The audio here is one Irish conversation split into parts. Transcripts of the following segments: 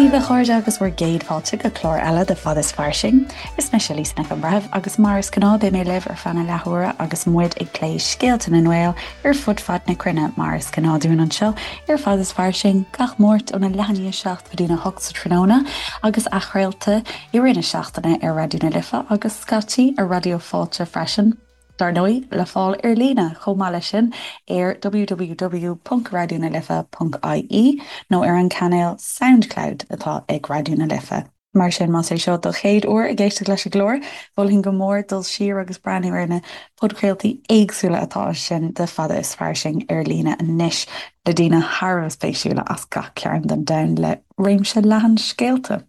daoibh a chairde agus bhur gcéad fáilte go clár eile de Fad is Fairsing. Is mise Lisa Nic an Bhreithimh agus mar is gnáth beidh mé libh ar feadh na leathuaire agus muid ag plé scéalta na nGael ar fud fad na cruinne mar is gnáth dúinn anseo ar Fad is Fairsing gach Máirt óna leath i ndiaidh 7 go dtína 8 sa tráthnóna agus athchraolta i rith na seachtaine ar Raidió na Life agus scaití ar Raidió Fáilte freisin. Dar ndóigh, le fáil ar líne chomh maith leis sin ar www.raidionalife.ie nó ar an cainéal Soundcloud atá ag Raidió na Life. Mar sin, más é seo do chéad uair ag éisteacht leis an gclár, mholfainn go mór dul siar agus breathnú ar na podchraoltaí éagsúla atá ansin de Fada is Fairsing ar líne anois le daoine thar a bheith spéisiúla as gach cearn den domhan le réimse leathan scéalta.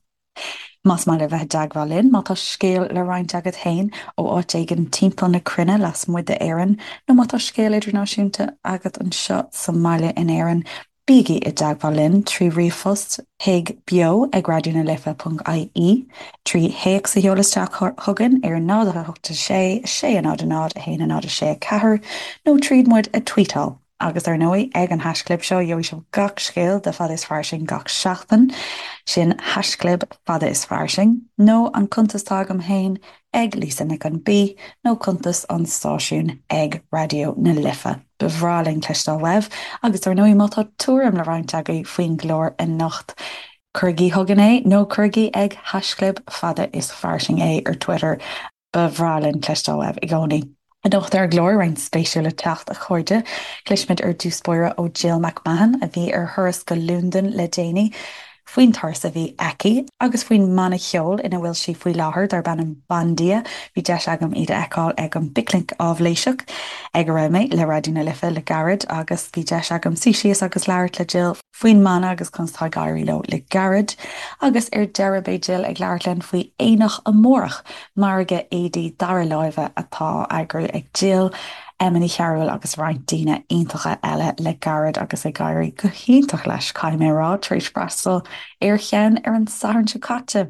Más maith libh bheith i dteagmháil linn, má tá scéal le roinnt agat féin ó áit éigin timpeall na cruinne lasmuigh d'Éirinn, nó má tá scéal idirnáisiúnta agat anseo sa mbaile in Éirinn, bígí i dteagmháil linn trí ríomhphost chuig beo ag raidionalife.ie, trí théacs a sheoladh isteach chugainn ar 0 8 6 6 0 0 1 0 6 4, nó tríd muid a tweetáil. Agus ar ndóigh, ag an haischlib seo, gheobhaidh sibh gach scéal de Fada is Fairsing gach seachtain, sin haischlib Fada is Fairsing, nó an cuntas atá agam féin ag Lisa Nic an B, nó cuntas an stáisiúin ag Raidió na Life. Ba bhreá linn cloisteáil uaibh, agus ar ndóigh, má tá tuairim le roinnt agaibh faoin gclár anocht, cuirigí chugainn é, nó cuirigí ag haischlib Fada is Fairsing é ar Twitter. Ba bhreá linn cloisteáil uaibh i gcónaí. Anocht ar an gclár, roinnt spéisiúil le teacht, a chairde. Cloisfimid ar dtús báire ó Jill McMahon, a bhí ar thuras go Londain le déanaí, faoin turas a bhí aici agus faoin mbanna ceoil ina bhfuil sí faoi láthair, darb ainm Bandia. Bhí deis agam iad a fheiceáil ag an bPicnic Áibhléiseach ag a raibh mé le Raidió na Life le gairid agus bhí deis agam suí síos agus labhairt le Jill faoin mbanna agus conas atá ag éirí leo le gairid. Agus ar deireadh beidh Jill ag labhairt linn faoi Aonach Amárach, margadh éadaí dara láimhe atá á eagrú ag Jill, Emma Ní Chearúil agus roinnt daoine iontacha eile le gairid agus ag éirí go hiontach leis, caithfidh mé a rá, tar éis freastal ar cheann ar an Satharn seo caite.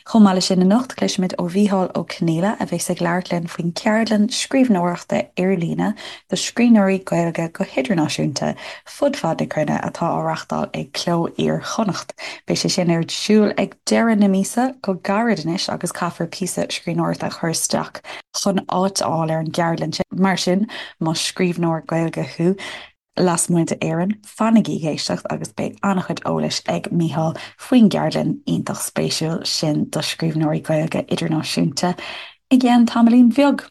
Chomh maith leis sin anocht, cloisfimid ó Mhícheál Ó Conghaile a bheas ag labhairt linn faoin gceardlann scríbhneoireachta ar líne do scríbhneoirí Gaeilge go hidirnáisiúnta fud fad na cruinne atá á reachtáil ag Cló Iar-Chonnacht. Beidh sé sin ar siúl ag deireadh na míosa, go gairid anois, agus caithfear píosa scríbhneoireachta a chur isteach chun áit a fháil ar an gceardlann sin. Mar sin, más scríbhneoir Gaeilge thú, Lasmuigh d'Éirinn, fanaigí ag éisteacht agus beidh an-chuid eolais ag Mícheál faoin gceardlann iontach spéisiúil sin do scríbhneoirí Gaeilge idirnáisiúnta i gceann tamaillín bheag.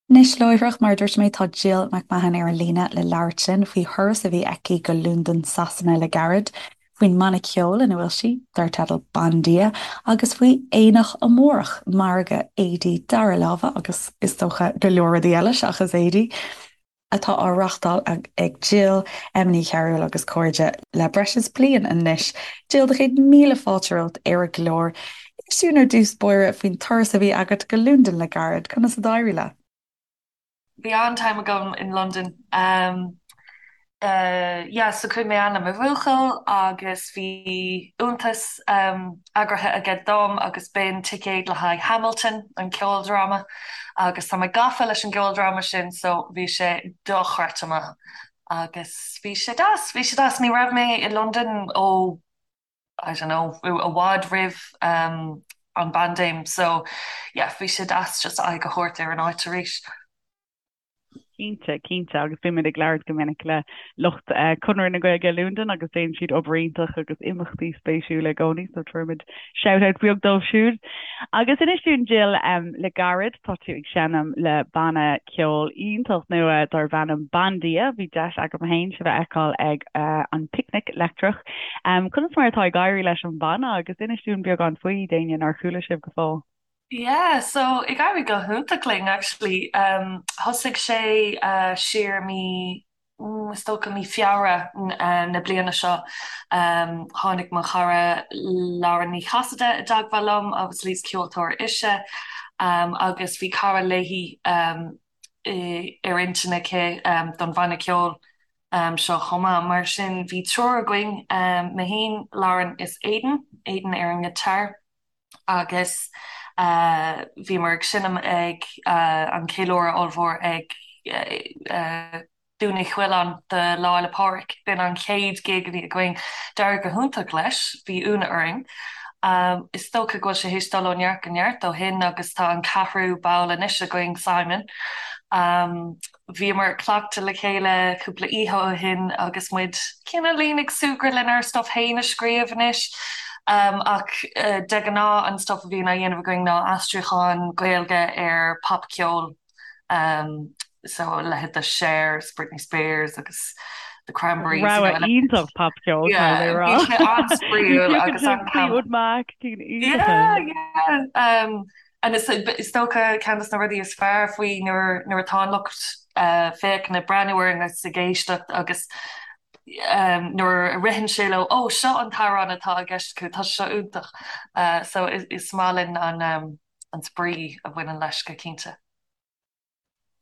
Anois láithreach, mar a dúirt mé, tá Jill McMahon ar an líne le labhairt linn faoi thuras a bhí aici go Londain, Sasana le gairid, faoin mbanna ceoil ina bhfuil sí, dar teideal Bandia, agus faoi Aonach Amárach, margadh éadaí dara láimhe agus is dócha go leor rudaí eile seachas éadaí. atá á reachtáil ag Jill, Emma Ní Chearúil agus cairde le breis is bliain anois. Jill, do chéad míle fáilte romhat ar an gclár. Inis dúinn ar dtús báire faoin turas a bhí agat go Londain le gairid. Conas a d'éirigh leat? Bhí an-time agam in Londain. Yeah, so chuaigh mé ann le mo bhuachaill agus bhí iontas eagraithe aige dom agus b'in ticéad le haghaidh Hamilton, an ceoldráma, agus tá mé gafa leis an gceoldráma sin so bhí sé dochreidte maith agus bhí sé deas, bhí sé deas. Ní raibh mé i Londain ó, I don't know, i bhfad roimh an bpaindéim so yeah, bhí sé deas just aghaidh a thabhairt ar an áit arís. Cinnte, cinnte, agus bímid ag labhairt go minic le lucht Conradh na Gaeilge i Londain agus déanann siad obair iontach agus imeachtaí spéisiúla i gcónaí, so tabharfaimid shout-out beag dóibh siúd. Agus inis dúinn, Jill, le gairid tá tú ag seinm le banna ceoil iontach nua darb ainm Bandia. Bhí deis agam féin sibh a fheiceáil ag an Picnic Leictreach. Conas mar atá ag éirí leis an bhanna agus inis dúinn beagán faoi, d'éinne nár chuala sibh go fóill. Yeah, so ag éirí go hiontach linn actually. Thosaigh sé siar mí, is dócha mí Feabhra na bliana seo. Tháinig mo chara Lauren Ní Chasaide i dteagmháil liom, obviously is ceoltóir ise agus bhí cara léi ar intinn aici don bhanna ceoil seo chomh maith. Mar sin bhí triúr againn, mé féin, Lauren is Aidan, Aidan ar an ngiotár. agus bhíomar ag seinm ag an cheiliúradh ollmhór ag. Dún Uí Choileáin do Lá Fhéile Pádraig. B'in an chéad gig a bhí againn. D'éirigh go hiontach leis, bhí ionadh orainn. Is dócha go bhfuil sé théis dul ó neart go neart ó shin agus tá an ceathrú ball anois againn, Simon. Bhíomar ag cleachtadh le chéile cúpla oíche ó shin agus muid cineáilín ag súgradh lenár stuff féin a scríobh anois. Ach de ghnáth an stuff a bhíonn á dhéanamh againn ná aistriúcháin Gaeilge ar popcheol. So a leithéid de Cher, Britney Spears agus The Cranberries. Rogha iontach popcheol, caithfidh mé a rá. Bhí sé an-spraíúil agus an-. Fleetwood Mac, cinn iontacha. Yeah, yeah. And is dócha ceann de na rudaí is fearr faoi nuair nuair atá an lucht féachana ag breathnú orainn agus ag éisteacht agus nuair a ritheann sé leo, 'Ó, seo an t-amhrán atá i gceist acu, tá sé seo iontach. So is maith linn an an spraoi a bhaineann leis go cinnte.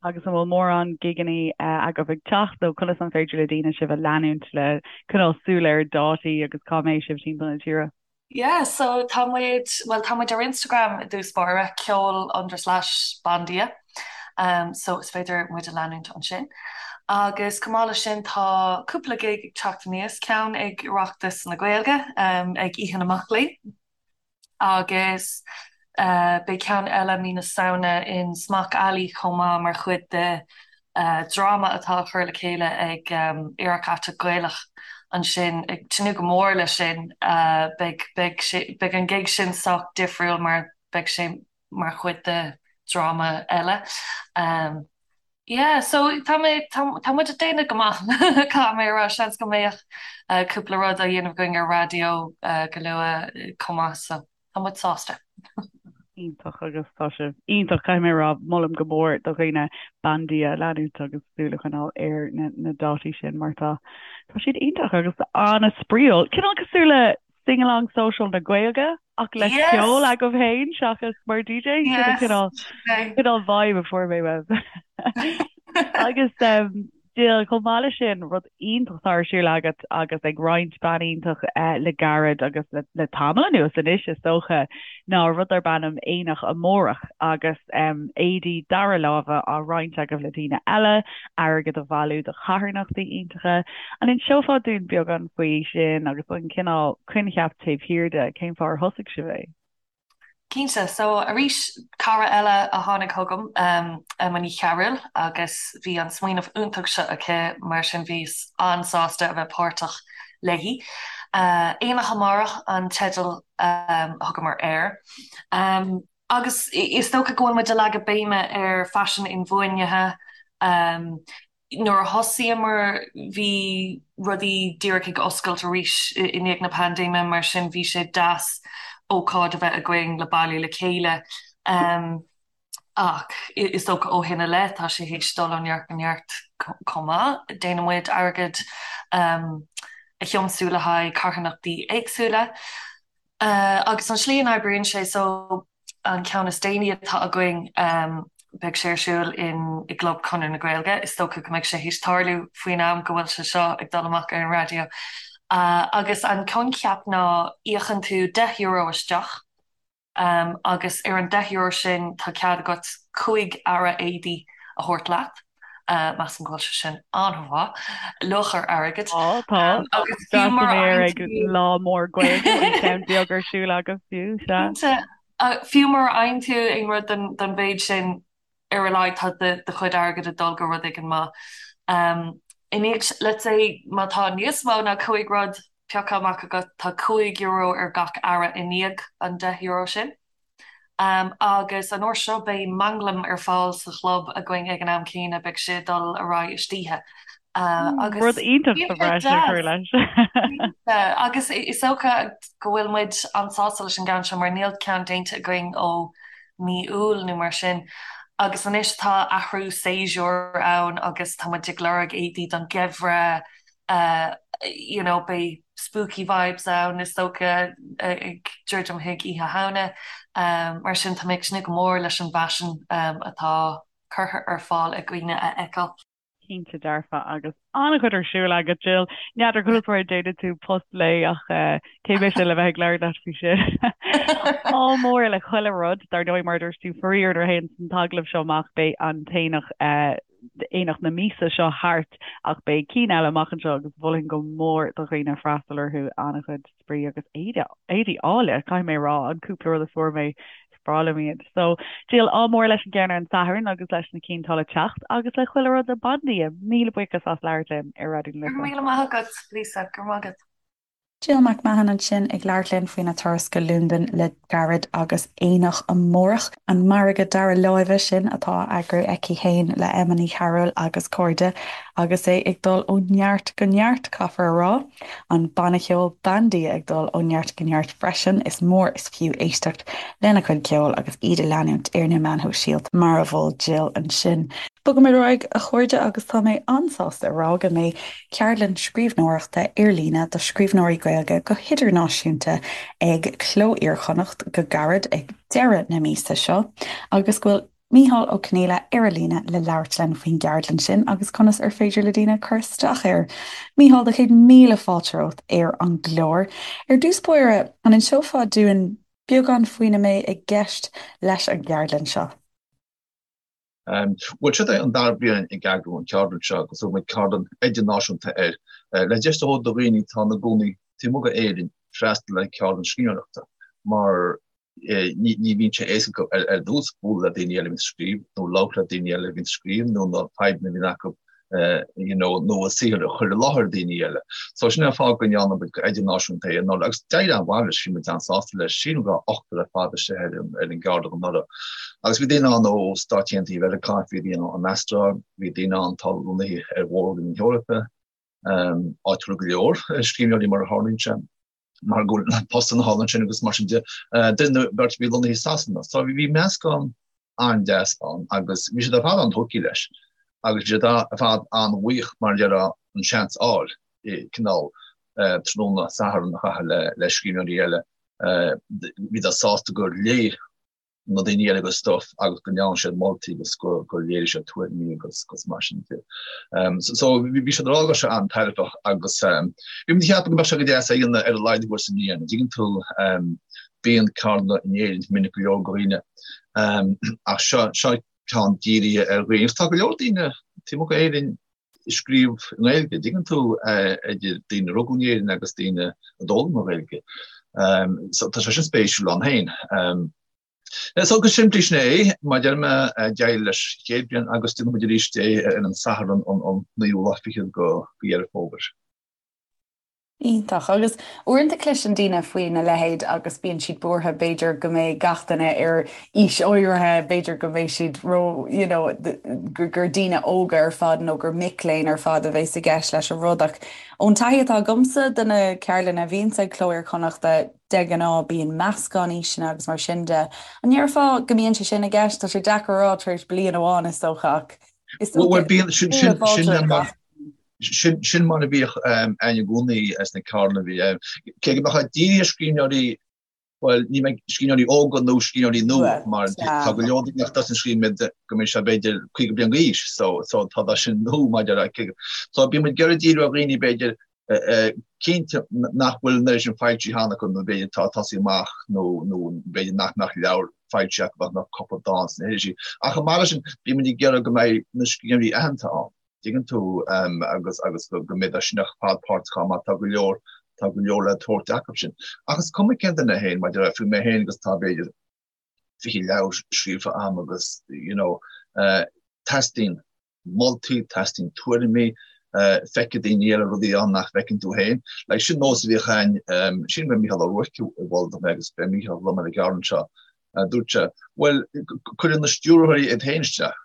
Agus an bhfuil mórán gigeannaí agaibh ag teacht nó conas an féidir le daoine sibh a leanúint le coinneáil súil ar dátaí agus cá mbeidh sibh timpeall na tíre? Yeah, so tá muid, bhuel tá muid ar Instagram i dtús báire, ceol under slash bandia, um, so is féidir muid a leanúint ansin. Agus chomh maith leis sin tá cúpla gig ag teacht aníos, ceann ag Oireachtas na Gaeilge um, ag Oíche na Mac Léinn, Agus beidh ceann eile mí na Samhna in Smock Alley chomh maith mar chuid de dhráma atá á chur le chéile ag Aerach Aiteach Gaelach ansin. Ag tnúth go mór leis sin. Beidh, beidh sé, beidh an gig sin sách difriúil mar beidh sé mar chuid de dhráma eile. Yeah, so tá mé, tá, tá muid ag déanamh go maith, caithfidh mé a rá, seans go mbeadh cúpla rud á dhéanamh againn ar raidió go luath chomh maith, so tá muid sásta. Iontach agus tá sibh iontach, caithfidh mé a rá, molaim go mór do dhaoine Bandia a leanúint agus súil a choinneáil ar na, na dátaí sin mar tá, tá siad iontach agus an-spraíúil. Cineál cosúil le Sing-along social na Gaeilge ach le ceol agaibh féin seachas mar DJ? Sin an cineál, cineál vibe a fuair mé uaibh. Agus Jill, chomh maith leis sin, rud iontach atá ar siúl agat agus ag roinnt bean iontach le gairid agus le tamall anuas anois is dócha, ná rud darb ainm Aonach Amárach agus éadaí dara láimhe á roinnt agaibh le daoine eile, airgead a bhailiú do charthanachtaí iontacha. An inseofá dúinn beagán faoi sin agus an cineál coincheap taobh thiar de, cén fáth ar thosaigh sibh é? Cinnte. So, arís, cara eile a tháinig chugam, Emma Ní Chearúil, agus bhí an smaoineamh iontach seo aici, mar sin bhíos an-sásta a bheith páirteach léi. Aonach Amárach an teideal a thugamar air. Agus is dócha go bhfuil muid ag leagadh béime ar faisean inbhuanaithe. Nuair a thosaíomar bhí rudaí díreach ag oscailt arís i ndiaidh na paindéime, mar sin bhí sé deas ócáid a bheith againn le bailiú le chéile. Ach is dócha ó shin i leith tá sé théis dul ó neart go neart chomh maith. Déanann muid airgead a thiomsú le haghaidh carthanachtaí éagsúla. Agus an slí a n-oibríonn sé, so an ceann is déanaí atá againn, beidh sé ar siúl in i gClub Chonradh na Gaeilge, is dócha go mbeidh sé théis tarlú faoin am go bhfuil sé seo ag dul amach ar an raidió. Agus an coincheap ná íocann tú €10 isteach, Agus ar an €10 sin tá cead agat 5 earra éadaí a thabhairt leat. Measaim go bhfuil sé sin an-mhaith. Luach ar airgead. Tá, tá. Agus fiú mura fhaigheann ag lá mór Gaeilge, bhí ceann beag ar siúl agaibh fiú, sea. Cinnte. Fiú mura fhaigheann tú aon rud don mhéid sin, ar a laghad tá do chuid airgid ag dul go rud éigin maith. I ndiaidh, let's say, má tá níos mó ná 5 rud pioctha amach agat, tá €5 ar gach earra i ndiaidh an €10 sin. Agus an uair seo beidh manglam ar fáil sa chlub againn ag an am céanna, beidh sé ag dul ar aghaidh istoíche. Agus Rud iontach sa bhreis a chur leis. Agus is dócha go bhfuil muid an-sásta leis an gceann seo mar níl ceann déanta againn ó mí Iúil nó mar sin. Agus anois tá athrú séasúir ann agus tá muid ag lorg éadaí don gheimhreadh, you know, beidh spooky vibes ann is dócha ag druidim chuig Oíche Shamhna. Mar sin tá mé ag tnúth go mór leis an bhfaisean atá curtha ar fáil ag daoine a fheiceáil. Cinnte dearfa agus an-chuid ar siúl agat, Jill. N'fheadar conas mar a déanann tú post lae ach cé mise le bheith ag labhairt leat faoi sin. Ádh mór le chuile rud, dar ndóigh mar a dúirt tú, faraor nuair a théann an t-agallamh seo amach beidh an t-aonach. Aonach na míosa seo thart ach beidh cinn eile amach anseo agus mholfainn go mór do dhaoine freastal orthu, an-chuid spraoi agus éadaí áille, caithfidh mé a rá, an cúpla rud a fuair mé, is breá liom iad. So, Jill, ádh mór leis an gceann ar an Satharn agus leis na cinn atá le teacht agus le chuile rud le Bandia. Míle buíochas as labhairt linn ar Raidió na Life. Go raibh míle maith agat, Lisa, go raibh maith agat. Jill McMahon ansin ag labhairt linn faoina turas go Londain le gairid agus aonach amárach, an margadh dara láimhe sin atá á eagrú aici féin le Emma Ní Chearúil agus cairde agus é ag dul ó neart go neart, caithfear a rá. An banna ceoil Bandia ag dul ó neart go neart freisin, is mór is fiú éisteacht lena chuid ceoil agus iad a leanúint ar na meáin shóisialta mar a mhol Jill ansin. Bogaimid ar aghaidh, a chairde, agus tá mé an-sásta a rá go mbeidh Ceardlann scríbhneoireachta ar líne do scríbhneoirí Gaeilge go hidirnáisiúnta ag Cló Iar-Chonnacht go gairid ag deireadh na míosa seo agus go bhfuil Mícheál Ó Conghaile ar an líne le labhairt linn faoin gceardlann sin agus conas ar féidir le daoine cur isteach air. Mícheál, do chéad míle fáilte romhat ar an gclár. Ar dtús báire, an inseofá dúinn beagán faoina mbeidh i gceist leis an gceardlann seo? Bhuel, seo é an dara bliain ag eagrú an cheardlann seo agus thug muid ceardlann idirnáisiúnta air, le deis a thabhairt do dhaoine atá ina gcónaí taobh amuigh d'Éirinn freastal ar cheardlann scríbhneoireachta mar ní bhíonn sé éasca acu ar dtús bualadh le daoine eile a bhíonn ag scríobh nó labhairt le daoine eile a bhíonn ag scríobh nó na fadhbanna a bhíonn acu you know, nó a saothar a chur i láthair daoine eile. So sin é an fáth go ndearna muid go idirnáisiúnta é anuraidh agus d'éirigh an-mhaith leis, bhí muid an-sásta leis. Sílim go raibh ochtar ar fad istigh ar an, ar an gceardlann anuraidh. Agus bhí daoine ann ó Stáit Aontaithe Mheiriceá, bhí daoine ann ón Astráil, bhí daoine ann atá lonnaithe ar Mhór-Roinn na hEorpa, um, áitiúla go leor, scríbhneoirí mar a tharlaíonn sé. mar go bhfuil postanna thall ansin agus mar sin de, duine nó beirt a bhí lonnaithe i Sasana. So bhí meascán an-deas ann agus bhí siad ar fad an-tógtha leis agus bhí siad ar fad an-bhuíoch mar a déarfá an seans a fháil cineál tráthnóna Sathairn a chaitheamh le scríbhneoirí eile. Bhíodar sásta gur léigh na daoine eile a gcuid stuif agus go ndearna siad moltaí agus gur léirigh siad tuairimí agus agus mar sin de. So bhí siad ag rá go raibh sé an-tairbheach agus bhí muid ag ceapadh go mbeadh sé go deas é a dhéanamh ar a laghad uair sa mbliain. An dtuigeann tú bíonn ceardlanna in Éirinn minic go leor do dhaoine ach seo seo ceann dírithe ar dhaoine agus tá go leor daoine taobh amuigh d'Éirinn ag scríobh i nGaeilge, an dtuigeann tú, idir daoine a rugadh in Éirinn agus daoine a d'fhoghlaim an Ghaeilge. So tá sé sin spéisiúil ann féin. So go simplí sin é, mar a deir mé, d'éirigh leis an chéad bhliain agus déanfaidh muid arís é ar an Satharn an naoú lá fichead de Dheireadh Fómhair. Iontach. Agus uaireanta cloiseann daoine faoina leithéid agus bíonn siad buartha b'fhéidir go mbeidh gach duine ar aois áirithe, b'fhéidir go mbeidh siad ró, you know, gur daoine óga ar fad nó gur mic léinn ar fad a bheas i gceist leis an rud. Ach ón taithí atá agamsa de na ceardlanna a bhíonns ag Cló Iar-Chonnachta, de ghnáth bíonn meascán aoiseanna agus mar sin de. An ndéarfá go mbíonn sé sin i gceist? Tá sé deacair a rá tar éis bliain amháin is dócha ach is dócha Bhuel, bíonn, sin, sin, Sin mar a bhíodh ann i gcónaí sna ceardlanna a bhí. Cé go mbeadh sé dírithe ar scríbhneoirí, bhuel, ní mbeidh scríbhneoirí óga nó scríbhneoirí nua, mar tá go leor daoine nach dtosaíonn ag scríobh go mbíonn siad b'fhéidir 50 bliain d'aois, so so tá tá sin nua maidir le cé So bíonn muid ag iarraidh díriú ar dhaoine b'fhéidir cinnte nach bhfuil an oiread sin foilsithe cheana acu nó b'fhéidir atá ag tosaí amach nó nó b'fhéidir nach mbeadh leabhar foilsithe acu ach nach cúpla dán sna hirisí. Ach chomh maith leis sin, bíonn muid ag iarraidh go mbeidh na scríbhneoirí aitheanta ann. Tuigeann tú, agus agus go mbeidh sin ar fad páirteach ann mar tá go leor, tá go leor le tabhairt acu sin. Ach is cuma cén duine féin, maidir le, fiú mé féin agus tá b'fhéidir 20 leabhar scríofa a'm agus, you know, teastaíonn moltaí, teastaíonn tuairimí, feicfidh daoine eile rudaí ann nach bhfeiceann tú féin. Like, sin nós a bhíodh a'inn, sílim gur Mícheál Ó Ruairc a mhol dom é agus beidh Mícheál liom ar an gceardlann seo, dúirt sé, bhuel, cuireann na stiúrthóirí iad féin isteach.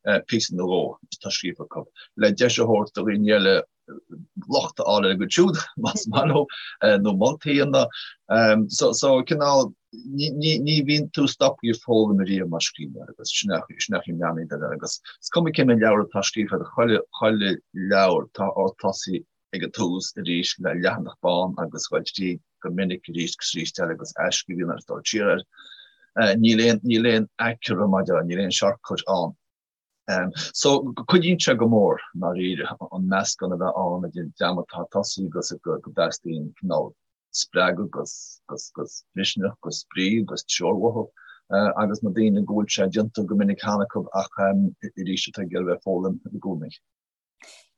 píosa nó dhó atá scríofa acu, le deis a thabhairt do dhaoine eile locht a fháil ar a gcuid siúd, más maith leo, nó moltaí a dhéanamh. So, so cineál, ní, ní, ní bhíonn tú stoptha ag foghlaim ariamh mar scríbhneoir agus sin é, sin é an meon air agus is cuma cé mhéad leabhar atá scríofa agat, chuile, chuile leabhar tá ort tosaí ag an tús arís le leathanach bán agus dul tríd go minic arís agus arís eile agus athscríobh a dhéanamh agus dul siar air. Níl aon, níl aon aicearra maidir le, níl aon shortcut ann. So, cuidíonn sé go mór, i ndáiríre, an meascán a bheith ann idir an dream atá ag tosaí agus go dteastaíonn cineál spreagadh agus, agus, agus misneach agus spraoi agus treoir uathu. agus na daoine go bhfuil sé déanta go minic cheana acu ach arís atá ag iarraidh bheith ag foghlaim i gcónaí.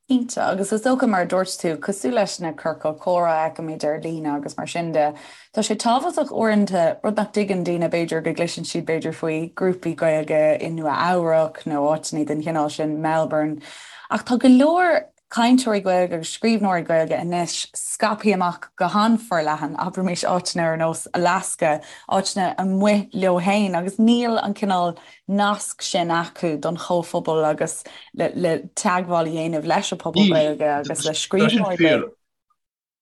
Cinnte, agus is dócha mar a dúirt tú, cosúil leis na ciorcail comhrá a fheicimid ar líne agus mar sin de, tá sé tábhachtach uaireanta, rud nach dtuigeann daoine b'fhéidir, go gcloiseann siad b'fhéidir faoi grúpaí Gaeilge i Nua Eabhrac nó áiteanna den chineál sin, Melbourne, ach tá go leor cainteoirí Gaeilge agus scríbhneoirí Gaeilge anois scaipthe amach go han-fhorleathan, abraimis áiteanna ar nós Alaska, áiteanna amuigh leo féin agus níl an cineál nasc sin acu don chomhphobal agus le teagmháil a dhéanamh leis an bpobal Gaeilge agus le scríbhneoirí Gaeilge.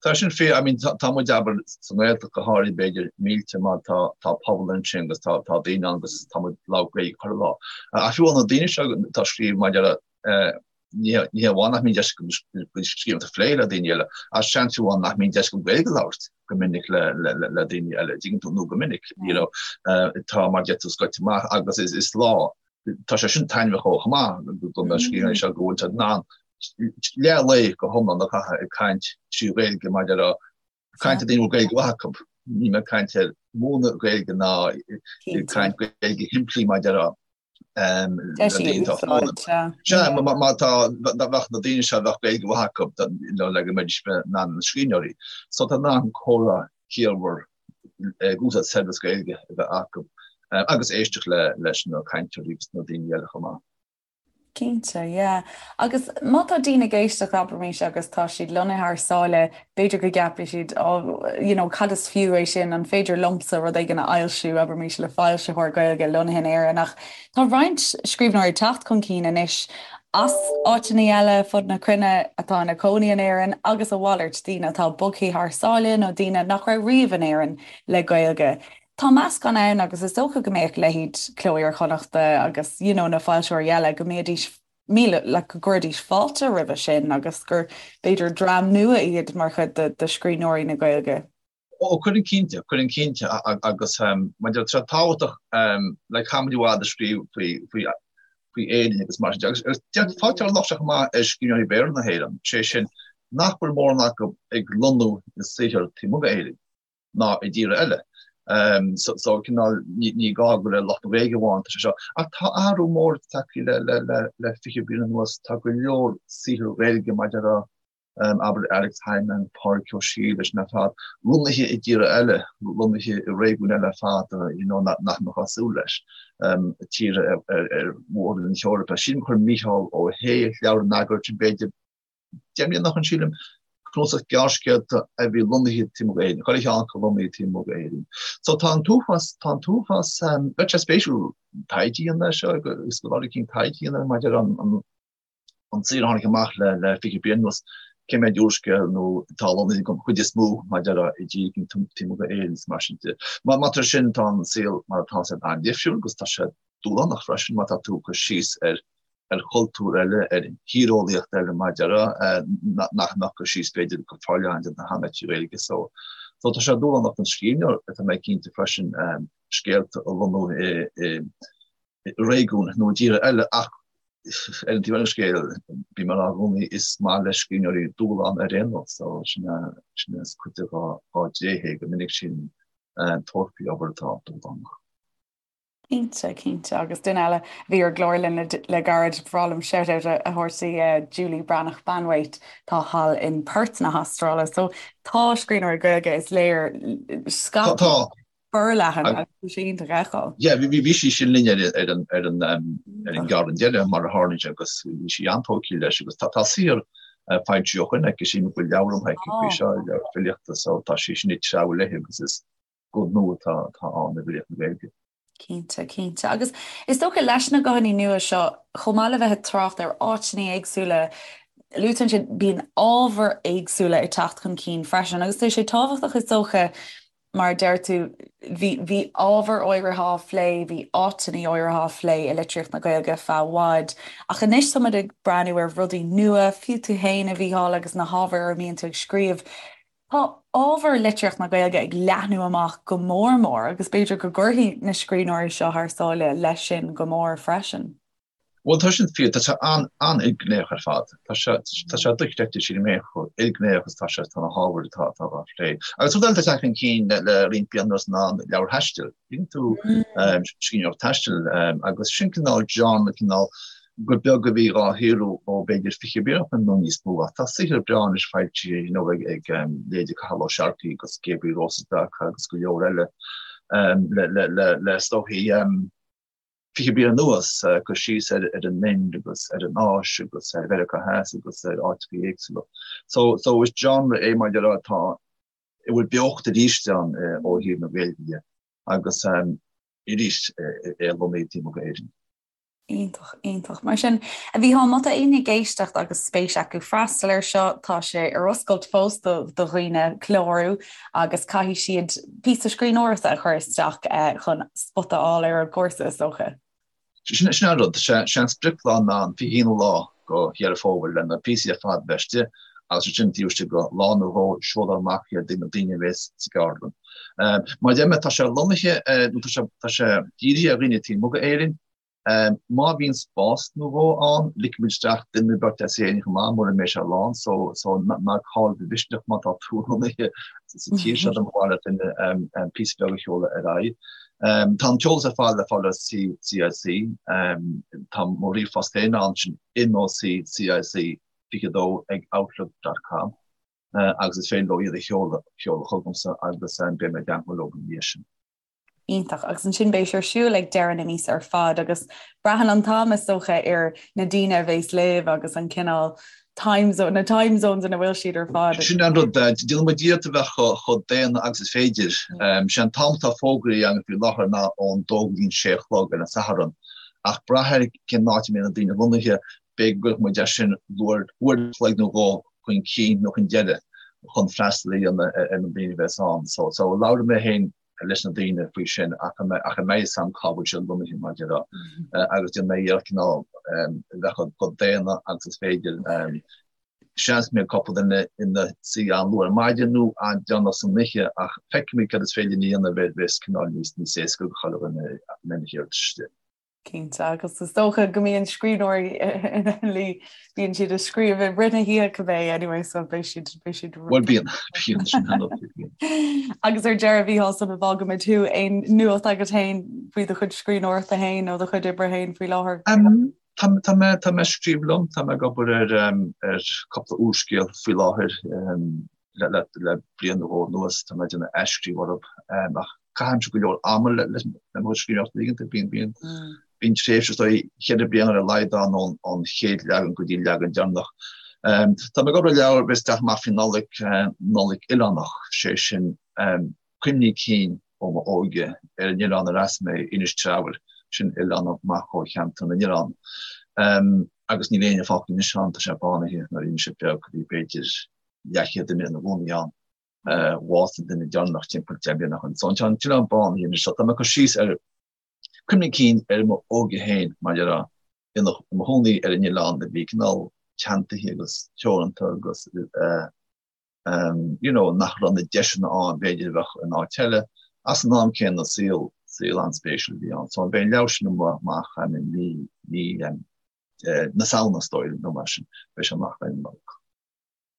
Tá sin fíor, I mean tá muid abair sa nGaeltacht go háirithe b'fhéidir millte mar tá tá pobal ansin agus tá tá daoine ann agus tá muid ag labhairt Gaeilge chuile lá. Ach fiú na daoine seo atá ag scríobh maidir le ní ní hamháin nach mbíonn deis acu scríobh a phlé le daoine eile, ach seans fiú amháin nach mbíonn deis acu Gaeilge a labhairt go minic le le le daoine eile, dtuigeann tú nó go minic, you know, tá mar deir tú scoite amach agus is is lá tá sé sin taitneamhach chomh maith do na scríbhneoirí seo go bhfuil siad in ann leath lae go hiomlán a chaitheamh ag caint trí Ghaeilge mar deir caint le daoine a bhfuil Gaeilge mhaith acu. Níl mé ag caint ar mhúineadh Gaeilge ná ag caint Gaeilge shimplí mar deir Sea, má tá bheadh na daoine seo bheadh Gaeilge mhaith acu le go mbeidís in ann na scríbhneoirí. So tá in ann comhrá ciallmhar ag úsáid saibhreas Gaeilge a bheith acu agus éisteacht leis na cainteoirí agus na daoine eile chomh maith. Cinnte, yeah. Agus má tá daoine ag éisteacht, abraimis, agus tá siad lonnaithe thar sáile, b'fhéidir go gceapfaidh siad, oh, you know, cad is fiú é sin, an féidir liomsa rud éigin a fhoilsiú, abraimis, le foilsitheoir Gaeilge lonnaithe in Éirinn. Ach tá roinnt scríbhneoirí ag teacht chun cinn anois as áiteanna eile fud na cruinne atá ina cónaí in Éirinn agus a mhalairt, daoine atá bogtha thar sáile nó daoine nach raibh riamh in Éirinn le Gaeilge. Tá meascán ann agus is dócha go mbeadh leithéid Cló Iar-Chonnachta agus you know na foilsitheoirí eile go mbeidís míle like go gcuirfidís fáilte roimhe sin agus gur b'fhéidir dream nua iad mar chuid de de scríbhneoirí na Gaeilge. Ó cuireann cinnte, cuireann cinnte agus mar deir tá sé tábhachtach like caithfimid i bhfad a scríobh faoi faoi faoi Éirinn agus mar sin de agus agus fágtar an locht seo chomh maith ar scríbhneoirí Béarla na hÉireann, sé sin nach bhfuil mórán acu ag lonnú a saothar taobh amuigh d'Éirinn. ná i dtíortha eile. So cineál ní gá gur le lucht na Gaeilge amháin atá sé seo. Ach tá athrú mór tagtha le le le le 20 bliain anuas. Tá go leor saothar Gaeilge mar deir abair Alex Hijmans, Pádraig Ó Siadhail leis na fad, lonnaithe i dtíortha eile, lonnaithe i réigiúin eile ar fad you know nach mbeifeá ag súil leis, tíortha ar ar mhór-roinn na hEorpa. Sílim gur chuir Mícheál Ó hAodha leabhar in eagar b'fhéidir 10 mbliana ó shin sílim, cnuasach gearrscéalta a bhí lonnaithe taobh amuigh d'Éirinn, chuile cheann acu lonnaithe taobh amuigh d'Éirinn. So tá an t-uafás, tá an t-uafás, bheadh sé spéisiúil taighde a dhéanamh air seo agus scoláirí cinn taighde a dhéanamh maidir an an an saothar a tháinig amach le le 20 bliain anuas, cé mhéad úrscéal nó atá lonnaithe den chuid is mó maidir i dtír éigin taobh amuigh d'Éirinn is mar sin de. Má tá sin tá an saol mar atá sé an-difriúil agus tá sé dúshlánach freisin má tá tú ag cur síos ar ar chultúr eile, ar thíreolaíocht eile mar deir nach mbeadh cur síos b'fhéidir go forleathan déanta cheana trí Ghaeilge. So so tá sé dúshlánach don scríbhneoir tá mé cinnte freisin scéalta a lonnú i i réigiún nó i dtíortha eile ach ar an taobh eile den scéal bím ag rá i gcónaí is maith le scríbhneoirí dúshlán ar aon nós so sin sin is cuid de dá dtréith é go minic sin tabhairt faoi obair atá dúshlánach. Cinnte, cinnte. Agus duine eile a bhí ar an gclár linn le gairid, ba bhreá liom shout-out a thabhairt di, Julie Breathnach Banwait, atá thall in Perth na hAstráile. So tá scríbhneoirí Gaeilge, is léir, scaipthe forleathan agus tá sé iontach a fheiceáil. Yeah, bhí sí sin linn ar an ar an ar an gceardlann deiridh mar a tharlaíonn sé agus bhí sí an-tógtha leis agus tá saothar foilsithe ó shin aici, sílim go bhfuil leabhar amuigh aici faoi seo, leabhar filíochta, so tá sí sin ag treabhadh léi agus is guth nua atá ann i bhfilíocht na Gaeilge. Cinnte, cinnte. Agus is dócha leis na guthanna nua seo, chomh maith le bheith ag trácht ar áiteanna éagsúla, luaite ansin, bíonn ábhair éagsúla ag teacht chun cinn freisin. Agus tá sé tábhachtach is dócha, mar a deir tú, bhí, bhí ábhair áirithe á phlé, bhí áiteanna áirithe á phlé i litríocht na Gaeilge feadh i bhfad, ach anois táimid ag breathnú ar rudaí nua, fiú tú féin, a Mhícheáil, agus na hábhair ar a mbíonn tú ag scríobh. Tá ábhar litríocht na Gaeilge ag leathnú amach go mór mór agus b'fhéidir go gcuirfidh na scríbhneoirí seo thar sáile leis sin go mór freisin. Bhuel, tá sin fíor. Tá sé an-ilghnéitheach ar fad. Tá sé tá sé dochreidte, sílim féin, chomh ilghnéitheach is atá sé, tá na hábhair atá atá á phlé. Agus rud eile atá ag teacht chun cinn le le roinnt bliana anuas ná an leabhair taistil. Bíonn tú scríbhneoireacht taistil agus sin cineál genre, cineál gur beag a bhí dhá shaothrú ó b'fhéidir 20 bliain ó shin nó níos mó. Ach tá saothar breá anois foilsithe you know ag ag leithéidí Cathal Ó Searcaigh agus Gabriel Rosas agus go leor eile le le le le is dóichí 20 bliain anuas, cur síos ar an Ind agus ar an Áis agus ar Mheiriceá Theas agus ar áiteacha éagsúla. So, so is genre é mar a déarfá atá, a bhfuil beocht arís ann ó thaobh na Gaeilge de agus arís é lonnaithe taobh amuigh d'Éirinn. Iontach, iontach. Mar sin, a Mhícheáil, má tá éinne ag éisteacht agus spéis acu freastal air seo, tá sé ar oscailt fós do dhaoine clárú agus caithfidh siad píosa scríbhneoireachta a chur isteach chun spota a fháil ar an gcúrsa, is dócha. Sin an rud, sé an sprioclá ná an 21ú lá de Dheireadh Fómhair le na píosaí ar fad bheith istigh agus ansin taobh istigh de lá nó dhó seolfar amach iad do na daoine a bheas sa gceardlann. Mar a deir mé, tá sé lonnaithe, nó tá sé dírithe ar dhaoine taobh amuigh d'Éirinn, Má bhíonn spás nó dhó ann, ligfimid isteach duine nó beirt as Éirinn chomh maith, mura mbeidh sé lán, so so ná caill do mhisneach má tá tú lonnaithe sa tír seo dá mba mhaith le duine píosa beag a sheoladh ar aghaidh. Tá an t-eolas ar fad le fáil ar CIC. Tá mo ríomhphost féin ann, sin moccic22 ag outlook dot com agus is féidir leo iad a sheoladh chugamsa agus beidh mé i dteagmháil leo ina dhiaidh sin. Iontach. Agus ansin beidh sé ar siúl ag deireadh na míosa ar fad agus braitheann an t-am is dócha ar na daoine a bheas libh agus an cineál time zone, na time zones ina bhfuil siad ar fad. Sin an rud, déanann muid iarracht a bheith chomh daonna agus is féidir. Sé an t-am atá fógraithe againn faoi láthair ná ón dó go dtí an sé a chlog ar an Satharn. Ach brath ar cén áit a mbeidh na daoine lonnaithe, b'fhéidir go gcuirfidh muid é sin uair an chloig nó dhó chun cinn nó chun deiridh chun freastal a dhéanamh ar na daoine a bheas ann. So, so labhróidh mé féin leis na daoine faoi sin ach a mbeidh fhios agam cá bhfuil siad lonnaithe mar a déarfá agus déanfaidh mé iarracht cineál a bheith chomh daonna agus is féidir. Seans go mbeidh cúpla duine ina suí an-luath ar maidin nó an-déanach san oíche ach feicfimid cad is féidir linn a dhéanamh a bheas cineál níos níos éasca do chuile dhuine a mbeidh na hiarratais istigh. Cinnte, agus is dócha go mbíonn scríbhneoirí ina luí, bíonn siad ag scríobh i rith na hoíche cibé anyway, so beidh siad, beidh siad. Bhuel bíonn, bíonn, sin an rud, bíonn. Agus ar deireadh, a Mhícheáil, sula bhfágaimid thú, aon nuacht agat féin faoi do chuid scríbhneoireachta féin nó do chuid oibre féin faoi láthair? Tá, tá mé, tá mé ag scríobh liom, tá mé ag obair ar, ar cúpla úrscéal faoi láthair, le, le, le bliain nó dhó anuas, tá mé ag déanamh athscríobh orthu, ach Caithimse go leor ama le mo chuid scríbhneoireachta uaireanta. Bíonn, bíonn, bíonn tréimhse is dóigh cheithre bliana ar a laghad ann ón, ón chéad leagan go dtí an leagan deireanach. Tá mé ag obair ar leabhar a bheas ag teacht amach faoi Nollaig, Nollaig Oileánach, sé sin cuimhní cinn ó m'óige ar an oileán ar as mé, Inis Treabhair, sin oileán amach ó cheantar na nOileán. Agus níl éinne fágtha anois ann, tá sé bánaithe nuair a bhí mise beag, bhí b'fhéidir leathchéad duine ina gcónaí ann. Bhásaigh an duine deireanach timpeall 10 mbliana ó shin. So tá an t-oileán bánaithe anois. So tá mé ag cur síos ar cuimhní cinn ar m'óige féin, mar a déarfá, i mo chónaí ar an oileán a bhí cineál teanntaithe agus teoranta agus you know nach raibh na deiseanna ann b'fhéidir a bheadh in áit eile. Ach san am céanna saol saol an-spéisiúil a bhí ann. So beidh an leabhar sin amach i mí mí na Samhna is dóigh nó mar sin. Beidh sé amach roimh an Nollaig.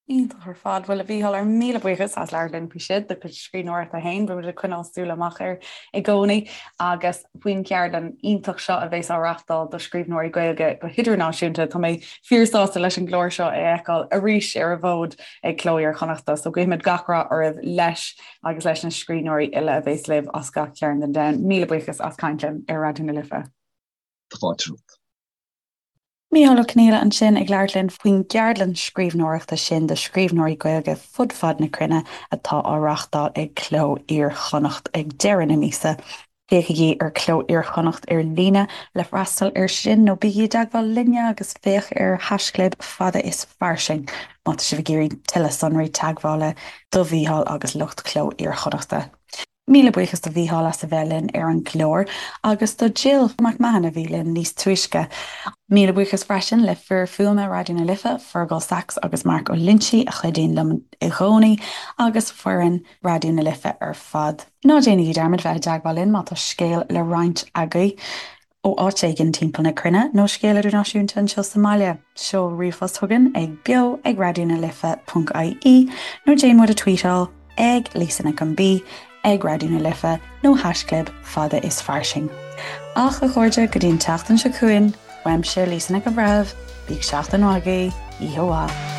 Iontach ar fad. Bhuel, a Mhícheáil, ár míle buíochas as labhairt linn faoi sin, do chuid scríbhneoireachta féin. Beimid ag coinneáil súil amach air i gcónaí agus faoin cheardlann iontach seo a bheas á reáchtáil do scríbhneoirí Gaeilge go hidirnáisiúnta. Tá mé fíorsásta leis an gclár seo a fheiceáil arís ar an bhfód ag Cló Iar-Chonnachta. So guímid gach rath oraibh leis agus leis na scríbhneoirí uile a bheas libh as gach cearn den domhan. Míle buíochas as caint linn ar Raidió na Life. Tá fáilte romhat. Mícheál Ó Conghaile ansin ag labhairt linn faoin gceardlann scríbhneoireachta sin do scríbhneoirí Gaeilge fud fad na cruinne atá á reáchtáil ag Cló Iar-Chonnacht ag deireadh na míosa. Féachaigí ar Cló Iar-Chonnacht ar líne le freastal air sin nó bígí i dteagmháil linne agus féach ar haischlib fada is fairsing má tá sibh ag iarraidh tuilleadh sonraí teagmhála do Mhícheál agus lucht Cló Iar-Chonnachta. Míle buíochas do Mhícheál as a bheith linn ar an gclár agus do Jill McMahon a bhí linn níos túisce. Míle buíochas freisin le fir fuaime Raidió na Life, Fergal Sachs agus Mark Ó Loinsigh a chuidíonn liom i gcónaí agus foireann Raidió na Life ar fad. Ná déanaigí dearmad bheith i dteagmháil linn má tá scéal le roinnt agaibh. ó áit éigin timpeall na cruinne nó scéal idirnáisiúnta anseo sa mbaile, seol ríomhphost chugainn ag beo ag raidió na life ponc ie nó déan muid a tweetáil ag Lisa Nic an B ag Raidió na Life nó haischlib fada is fairsing. Ach, a chairde, go dtí an tseachtain seo chugainn, uaimse Lisa Nic an Bhreithimh, bíodh seachtain mhaith agaibh, oíche mhaith.